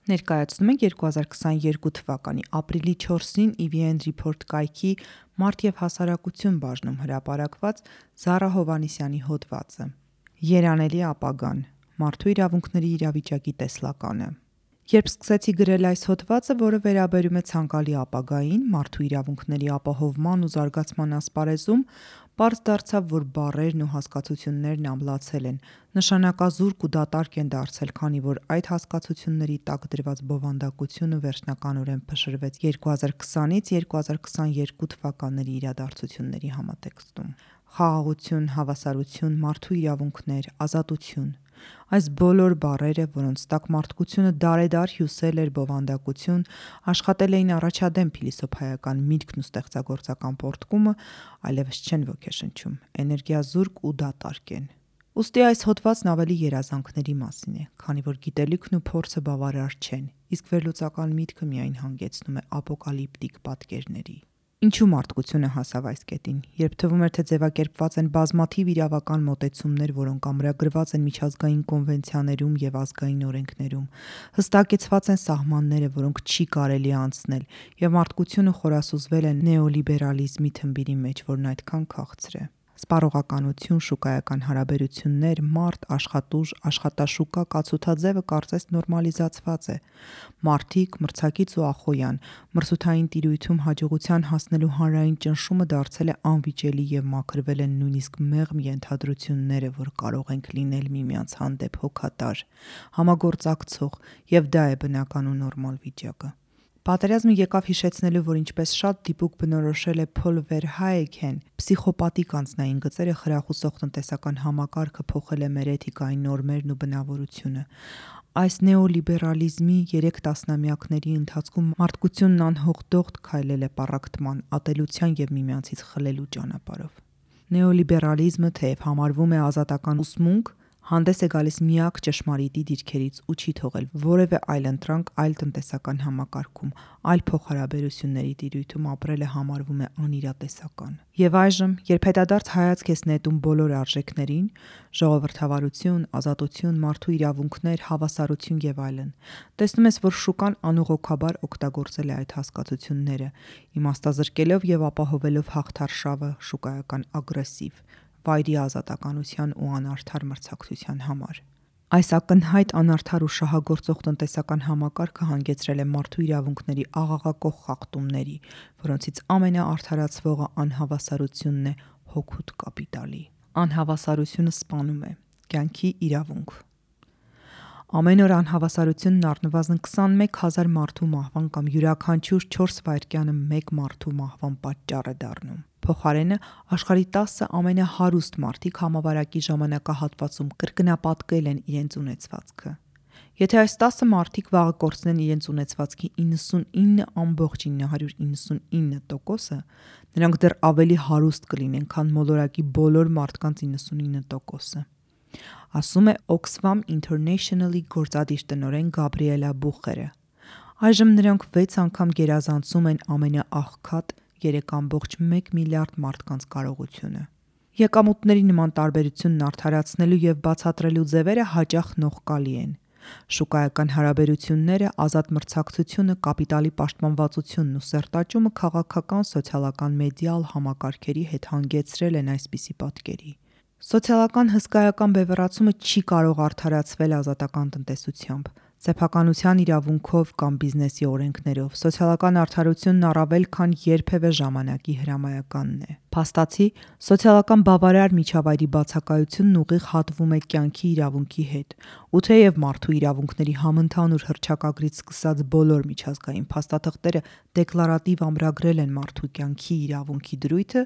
Ներկայացնում ենք 2022 թվականի ապրիլի 4-ին EVN Report կայքի մարդ և հասարակություն բաժնում հրապարակված Զարա Հովհաննիսյանի հոդվածը։ Երանելի ապագան. մարդու իրավունքների իրավիճակի տեսլականը։ Երբ սկսեցի գրել այս հոդվածը, որը վերաբերում է ցանկալի ապագային, մարդու իրավունքների ապահովման ու զարգացման ասպարեզում, պարզ դարձավ, որ բառերն ու հասկացություններն ամլացել են, նշանակազուրկ ու դատարկ են դարձել, քանի որ այդ հասկացությունների տակ դրված բովանդակությունը վերջնականորեն փշրվեց 2020-ից 2022 թվականների իրադարձությունների համատեքստում։ Խաղաղություն, հավասարություն, մարդու իրավունքներ, ազատություն։ Այս բոլոր բառերը, որոնց տակ մարդկությունը դարեդար հյուսել էր բովանդակություն, աշխատել էին առաջադեմ փիլիսոփայական միտքն ու ստեղծագործական պոռթկումը, այլևս չեն ոգեշնչում, էներգիազուրկ ու դատարկ են։ Ուստի այս հոդվածն ավելի երազանքների մասին է, քանի որ գիտելիքն ու փորձը բավարար չեն, իսկ վերլուծական միտքը միայն հանգեցնում է ապոկալիպտիկ պատկերների։ Ինչու մարդկությունը հասավ այս կետին, երբ թվում էր, թե ձևակերպված են բազմաթիվ իրավական մոտեցումներ, որոնք ամրագրված են միջազգային կոնվենցիաներում և ազգային օրենքներում, հստակեցված են սահմանները, որոնք չի կարելի անցնել, և մարդկությունը խորասուզվել է նեոլիբերալիզմի թմբիրի մեջ, որն այդքան քաղցր է։ Սպառողականություն, շուկայական հարաբերություններ, մարդ, աշխատուժ, աշխատաշուկա կացութաձևը կարծես նորմալիզացված է։ Մարդիկ, մրցակից ու ախոյան, մրցութային տիրույթում հաջողության հասնելու հանրային ճնշումը դարձել է անվիճելի և մաքրվել են նույնիսկ մեղմ ենթադրությունները, որ կարող ենք լինել միմյանց հանդեպ հոգատար, համագործակցող, և դա է բնական ու նորմալ վիճակը։ Պատերազմը եկավ հիշեցնելու, որ ինչպես շատ դիպուկ բնորոշել է Փոլ Վերհայգեն, փսիխոպատիկ անձնային գծերը խրախուսող տնտեսական համակարգը փոխել է մեր էթիկայի նորմերն ու բնավորությունը։ Այս նեոլիբերալիզմի 3 տասնամյակների ընթացքում մարդկությունն անհողդողդ քայլել է պառակտման, ատելության և միմյանցից խլելու ճանապարհով։ Նեոլիբերալիզմը, թեև համարվում է ազատական ուսմունք, հանդես է գալիս միակ ճշմարիտի դիրքերից ու չի թողել որևէ այլընտրանք այլ տնտեսական համակարգում, այլ փոխհարաբերությունների տիրույթում ապրելը համարվում է անիրատեսական։ Եվ այժմ, երբ հետադարձ հայացք ես նետում բոլոր արժեքներին՝ ժողովրդավարություն, ազատություն, մարդու իրավունքներ, հավասարություն և այլն, տեսնում ես, որ շուկան անուղղокաբար օգտագործել է այդ հասկացությունները, իմաստազրկելով և ապահովելով հաղթարշավը շուկայական ագրեսիվ, վայրի ազատականության ու անարդար մրցակցության համար։ Այս ակնհայտ անարդար ու շահագործող տնտեսական համակարգը հանգեցրել է մարդու իրավունքների աղաղակող խախտումների, որոնցից ամենաարդարացվողը անհավասարությունն է հօգուտ կապիտալի։ Անհավասարությունը սպանում է։ Կյանքի իրավունք։ Ամեն օր անհավասարությունն առնվազն 21,000 մարդու մահվան կամ յուրաքանչյուր 4 վայրկյանը մեկ մարդու մահվան պատճառ է դառնում։ Փոխարենը, աշխարհի 10 ամենահարուստ մարդիկ համավարակի ժամանակահատվածում կրկնապատկել են իրենց ունեցվածքը։ Եթե այս 10 մարդիկ վաղը կորցնեն իրենց ունեցվածքի 99,999%, նրանք դեռ ավելի հարուստ կլինեն, քան մոլորակի բոլոր մարդկանց 99%-ը։ Ասում է Oxfam International-ի գործադիր տնօրեն Գաբրիելա Բուխերը։ Այժմ նրանք 6 անգամ գերազանցում են ամենաաղքատ 3,1 միլիարդ մարդկանց կարողությունը։ Եկամուտների նման տարբերությունն արդարացնելու և բացատրելու ձևերը հաճախ նողկալի են։ Շուկայական հարաբերությունները, ազատ մրցակցությունը, կապիտալի պաշտպանվածությունն ու սերտաճումը քաղաքական, սոցիալական, մեդիալ համակարգերի հետ հանգեցրել են այսպիսի պատկերի։ Սոցիալական հսկայական բևեռացումը չի կարող արդարացվել ազատական տնտեսությամբ, սեփականության իրավունքով կամ բիզնեսի օրենքներով։ Սոցիալական արդարությունն առավել քան երբևէ ժամանակի հրամայականն է։ Փաստացի, սոցիալական բավարար միջավայրի բացակայությունն ուղիղ հատվում է կյանքի իրավունքի հետ, ու թեև մարդու իրավունքների համընդհանուր հռչակագրից սկսած բոլոր միջազգային փաստաթղթերը դեկլարատիվ ամրագրել են մարդու կյանքի իրավունքի դրույթը,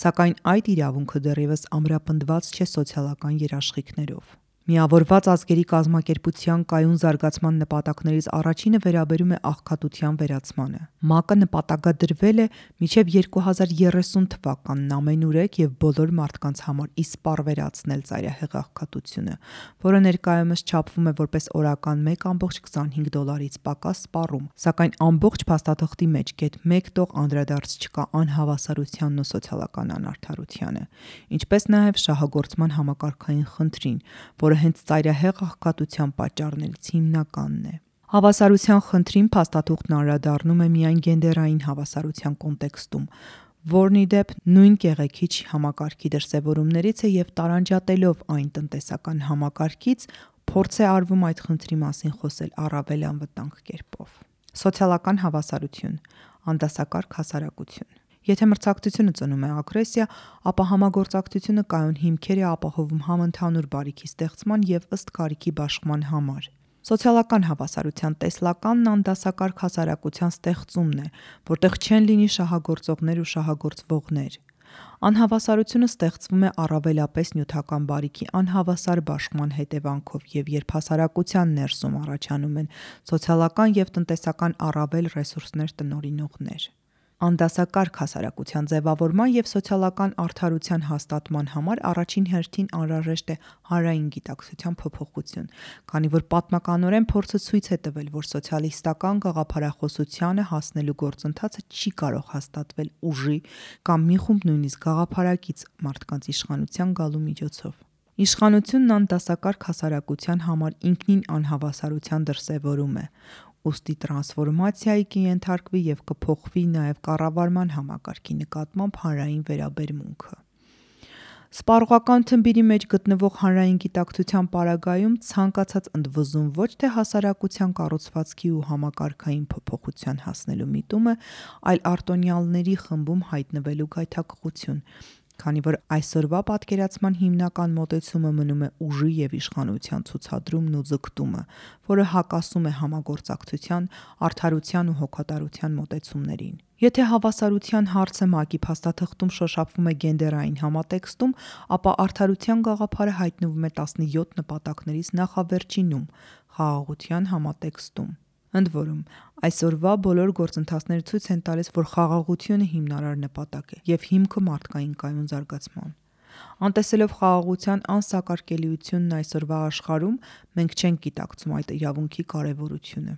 սակայն այդ իրավունքը դեռևս ամրապնդված չէ սոցիալական երաշխիքներով։ Միավորված ազգերի կազմակերպության կայուն զարգացման նպատակներից առաջինը վերաբերում է աղքատության վերացմանը։ ՄԱԿ-ը նպատակադրվել է մինչև 2030 թվականն ամենուրեք և բոլոր մարդկանց համար իսպառ վերացնել ծայրահեղ աղքատությունը, որը ներկայումս չափվում է որպես օրական $1,25-ից պակաս սպառում, սակայն ամբողջ փաստաթղթի մեջ գեթ մեկ տող անդրադարձ չկա անհավասարությանն ու սոցիալական անարդարությանը, ինչպես նաև շահագործման համակարգային խնդրին, որը հենց ծայրահեղ աղքատության պատճառներից հիմնականն է։ Հավասարության խնդրին փաստաթուղթն անդրադառնում է միայն գենդերային հավասարության կոնտեքստում, որն ի դեպ նույն կեղեքիչ համակարգի դրսևորումներից է և տարանջատելով այն տնտեսական համակարգից, փորձ է արվում այդ խնդրի մասին խոսել առավել անվտանգ կերպով։ Սոցիալական հավասարություն, անդասակարգ հասարակություն։ Եթե մրցակցությունը ծնում է ագրեսիա, ապա համագործակցությունը կայուն հիմքեր է ապահովում համընդհանուր բարիքի ստեղծման և ըստ կարիքի բաշխման համար։ Սոցիալական հավասարության տեսլականն անդասակարգ հասարակության ստեղծումն է, որտեղ չեն լինի շահագործողներ ու շահագործվողներ։ Անհավասարությունը ստեղծվում է առավելապես նյութական բարիքի անհավասար բաշխման հետևանքով և երբ հասարակության ներսում առաջանում են սոցիալական և տնտեսական առավել ռեսուրսներ տնօրինողներ։ Անդասակարգ հասարակության ձևավորման և սոցիալական արդարության հաստատման համար առաջին հերթին անհրաժեշտ է հանրային գիտակցության փոփոխություն, քանի որ պատմականորեն փորձը ցույց է տվել, որ սոցիալիստական գաղափարախոսությանը հասնելու գործընթացը չի կարող հաստատվել ուժի կամ մի խումբ նույնիսկ գաղափարակից մարդկանց իշխանության գալու միջոցով։ Իշխանությունն անդասակարգ հասարակության համար ինքնին անհավասարության դրսևորում է, ուստի տրանսֆորմացիայի կենթարկվի և կփոխվի նաև կառավարման համակարգի նկատմամբ հանրային վերաբերմունքը։ Սպառողական թմբիրի մեջ գտնվող հանրային գիտակցության պարագայում ցանկացած ընդվզում ոչ թե հասարակության կառուցվածքի ու համակարգային փոփոխության հասնելու միտում է, այլ արտոնյալների խմբում հայտնվելու գայթակղություն, քանի որ այսօրվա պատկերացման հիմնական մոտեցումը մնում է ուժի և իշխանության ցուցադրումն ու ձգտումը, որը հակասում է համագործակցության, արդարության ու հոգատարության մոտեցումներին։ Եթե հավասարության հարցը ՄԱԿ-ի փաստաթղթում շոշափվում է գենդերային համատեքստում, ապա արդարության գաղափարը հայտնվում է 17 նպատակներից նախավերջինում՝ խաղաղության համատեքստում։ Ընդ որում, այսօրվա բոլոր գործընթացները ցույց են տալիս, որ խաղաղությունը հիմնարար նպատակ է և հիմքը մարդկային կայուն զարգացման։ Անտեսելով խաղաղության անսակարկելիությունն այսօրվա աշխարհում, մենք չենք գիտակցում այդ իրավունքի կարևորությունը։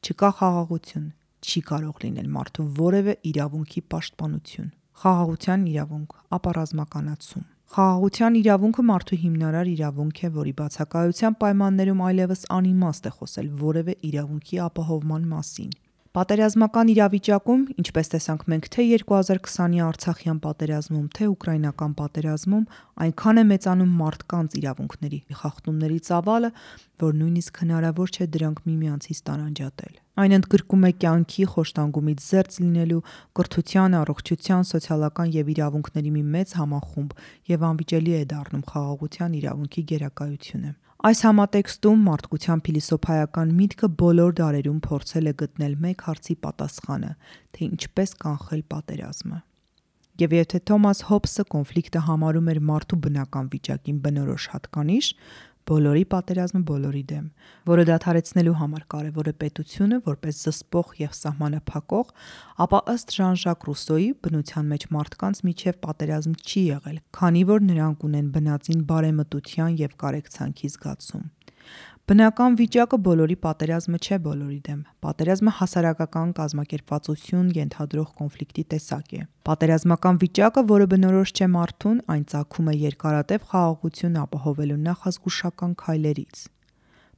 Չկա խաղաղություն, չի կարող լինել մարդու որևէ իրավունքի պաշտպանություն։ Խաղաղության իրավունք, ապա ռազմականացում։ Խաղաղության իրավունքը մարդու հիմնարար իրավունք է, որի բացակայության պայմաններում այլևս անիմաստ է խոսել որևէ իրավունքի ապահովման մասին։ Պատերազմական իրավիճակում, ինչպես տեսանք մենք թե 2020-ի Արցախյան պատերազմում, թե ուկրաինական պատերազմում, այնքան է մեծանում մարդկանց իրավունքների խախտումների ծավալը, որ նույնիսկ հնարավոր չէ դրանք միմյանցից տարանջատել։ Այն ընդգրկում է կյանքի խոշտանգումից զերծ լինելու, կրթության, առողջության, սոցիալական և իրավունքների մի մեծ համախումբ և անվիճելի է դառնում խաղաղության իրավունքի գերակայությունը։ Այս համատեքստում մարդկության փիլիսոփայական միտքը բոլոր դարերում փորձել է գտնել մեկ հարցի պատասխանը, թե ինչպես կանխել պատերազմը։ Եվ եթե Թոմաս Հոբսը կոնֆլիկտը համարում էր մարդու բնական վիճակին բնորոշ հատկանիշ, բոլորի պատերազմը բոլորի դեմ, որը դադարեցնելու համար կարևոր է պետությունը որպես զսպող և սահմանափակող, ապա ըստ Ժան-Ժակ Ռուսոյի բնության մեջ մարդկանց միջև պատերազմ չի եղել, քանի որ նրանք ունեն բնածին բարեմտության և կարեկցանքի զգացում։ Բնական վիճակը բոլորի պատերազմը չէ բոլորի դեմ։ Պատերազմը հասարակական կազմակերպվածություն ենթադրող կոնֆլիկտի տեսակ է։ Պատերազմական վիճակը, որը բնորոշ չէ մարդուն, այն ծագում է երկարատև խաղաղություն ապահովելու նախազգուշական քայլերից։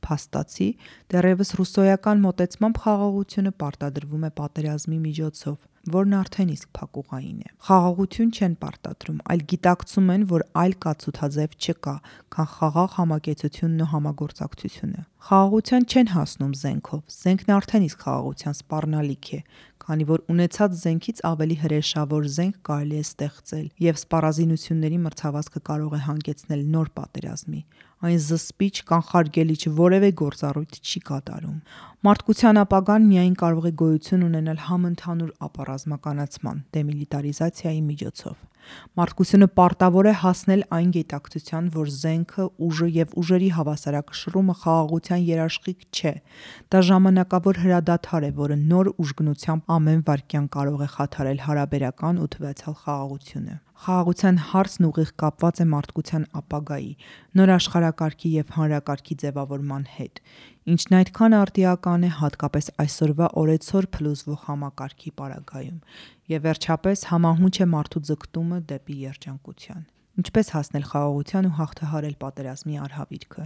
Փաստացի, դեռևս ռուսոյական մոտեցմամբ խաղաղությունը պարտադրվում է պատերազմի միջոցով, որն արդեն իսկ փակուղային է։ Խաղաղություն չեն պարտադրում, այլ գիտակցում են, որ այլ կացութաձև չկա, քան խաղաղ համակեցությունն ու համագործակցությունը։ Խաղաղության չեն հասնում զենքով, զենքն արդեն իսկ խաղաղության սպառնալիք է, քանի որ ունեցած զենքից ավելի հրեշավոր զենք կարելի է ստեղծել, և սպառազինությունների մրցավազքը կարող է հանգեցնել նոր պատերազմի։ Այն զսպիչ, կանխարգելիչ որևէ գործառույթ չի կատարում։ Մարդկության ապագան միայն կարող է գոյություն ունենալ համընդհանուր ապառազմականացման, դեմիլիտարիզացիայի միջոցով։ Մարդկությունը պարտավոր է հասնել այն գիտակցության, որ զենքը, ուժը և ուժերի հավասարակշռումը խաղաղության երաշխիք չէ։ Դա ժամանակավոր հրադադար է, որը նոր ուժգնությամբ ամեն վայրկյան կարող է խաթարել հարաբերական ու թվացյալ խաղաղությունը։ Խաղաղության հարցն ուղիղ կապված է մարդկության ապագայի, նոր աշխարհակարգի և հանրակարգի ձևավորման հետ, ինչն այդքան արդիական է հատկապես այսօրվա օրեցօր փլուզվող համակարգի պարագայում, և վերջապես համահունչ է մարդու ձգտումը դեպի երջանկության։ Ինչպես հասնել խաղաղության ու հաղթահարել պատերազմի արհավիրքը։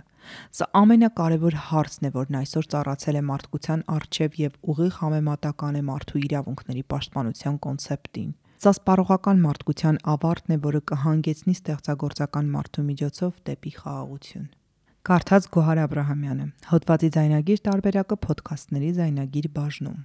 Սա ամենակարևոր հարցն է, որն այսօր ծառացել է մարդկության առջև եւ ուղիղ համեմատական է մարդու իրավունքների պաշտպանության կոնցեպտին։ Սա սպառողական մարդկության ավարտն է, որը կհանգեցնի ստեղծագործական մարդու միջոցով դեպի խաղաղություն։ Կարդաց Գոհար Աբրահամյանը։ Հոդվածի ձայնագիր տարբերակը Փոդքասթների ձայնագիր բաժնում։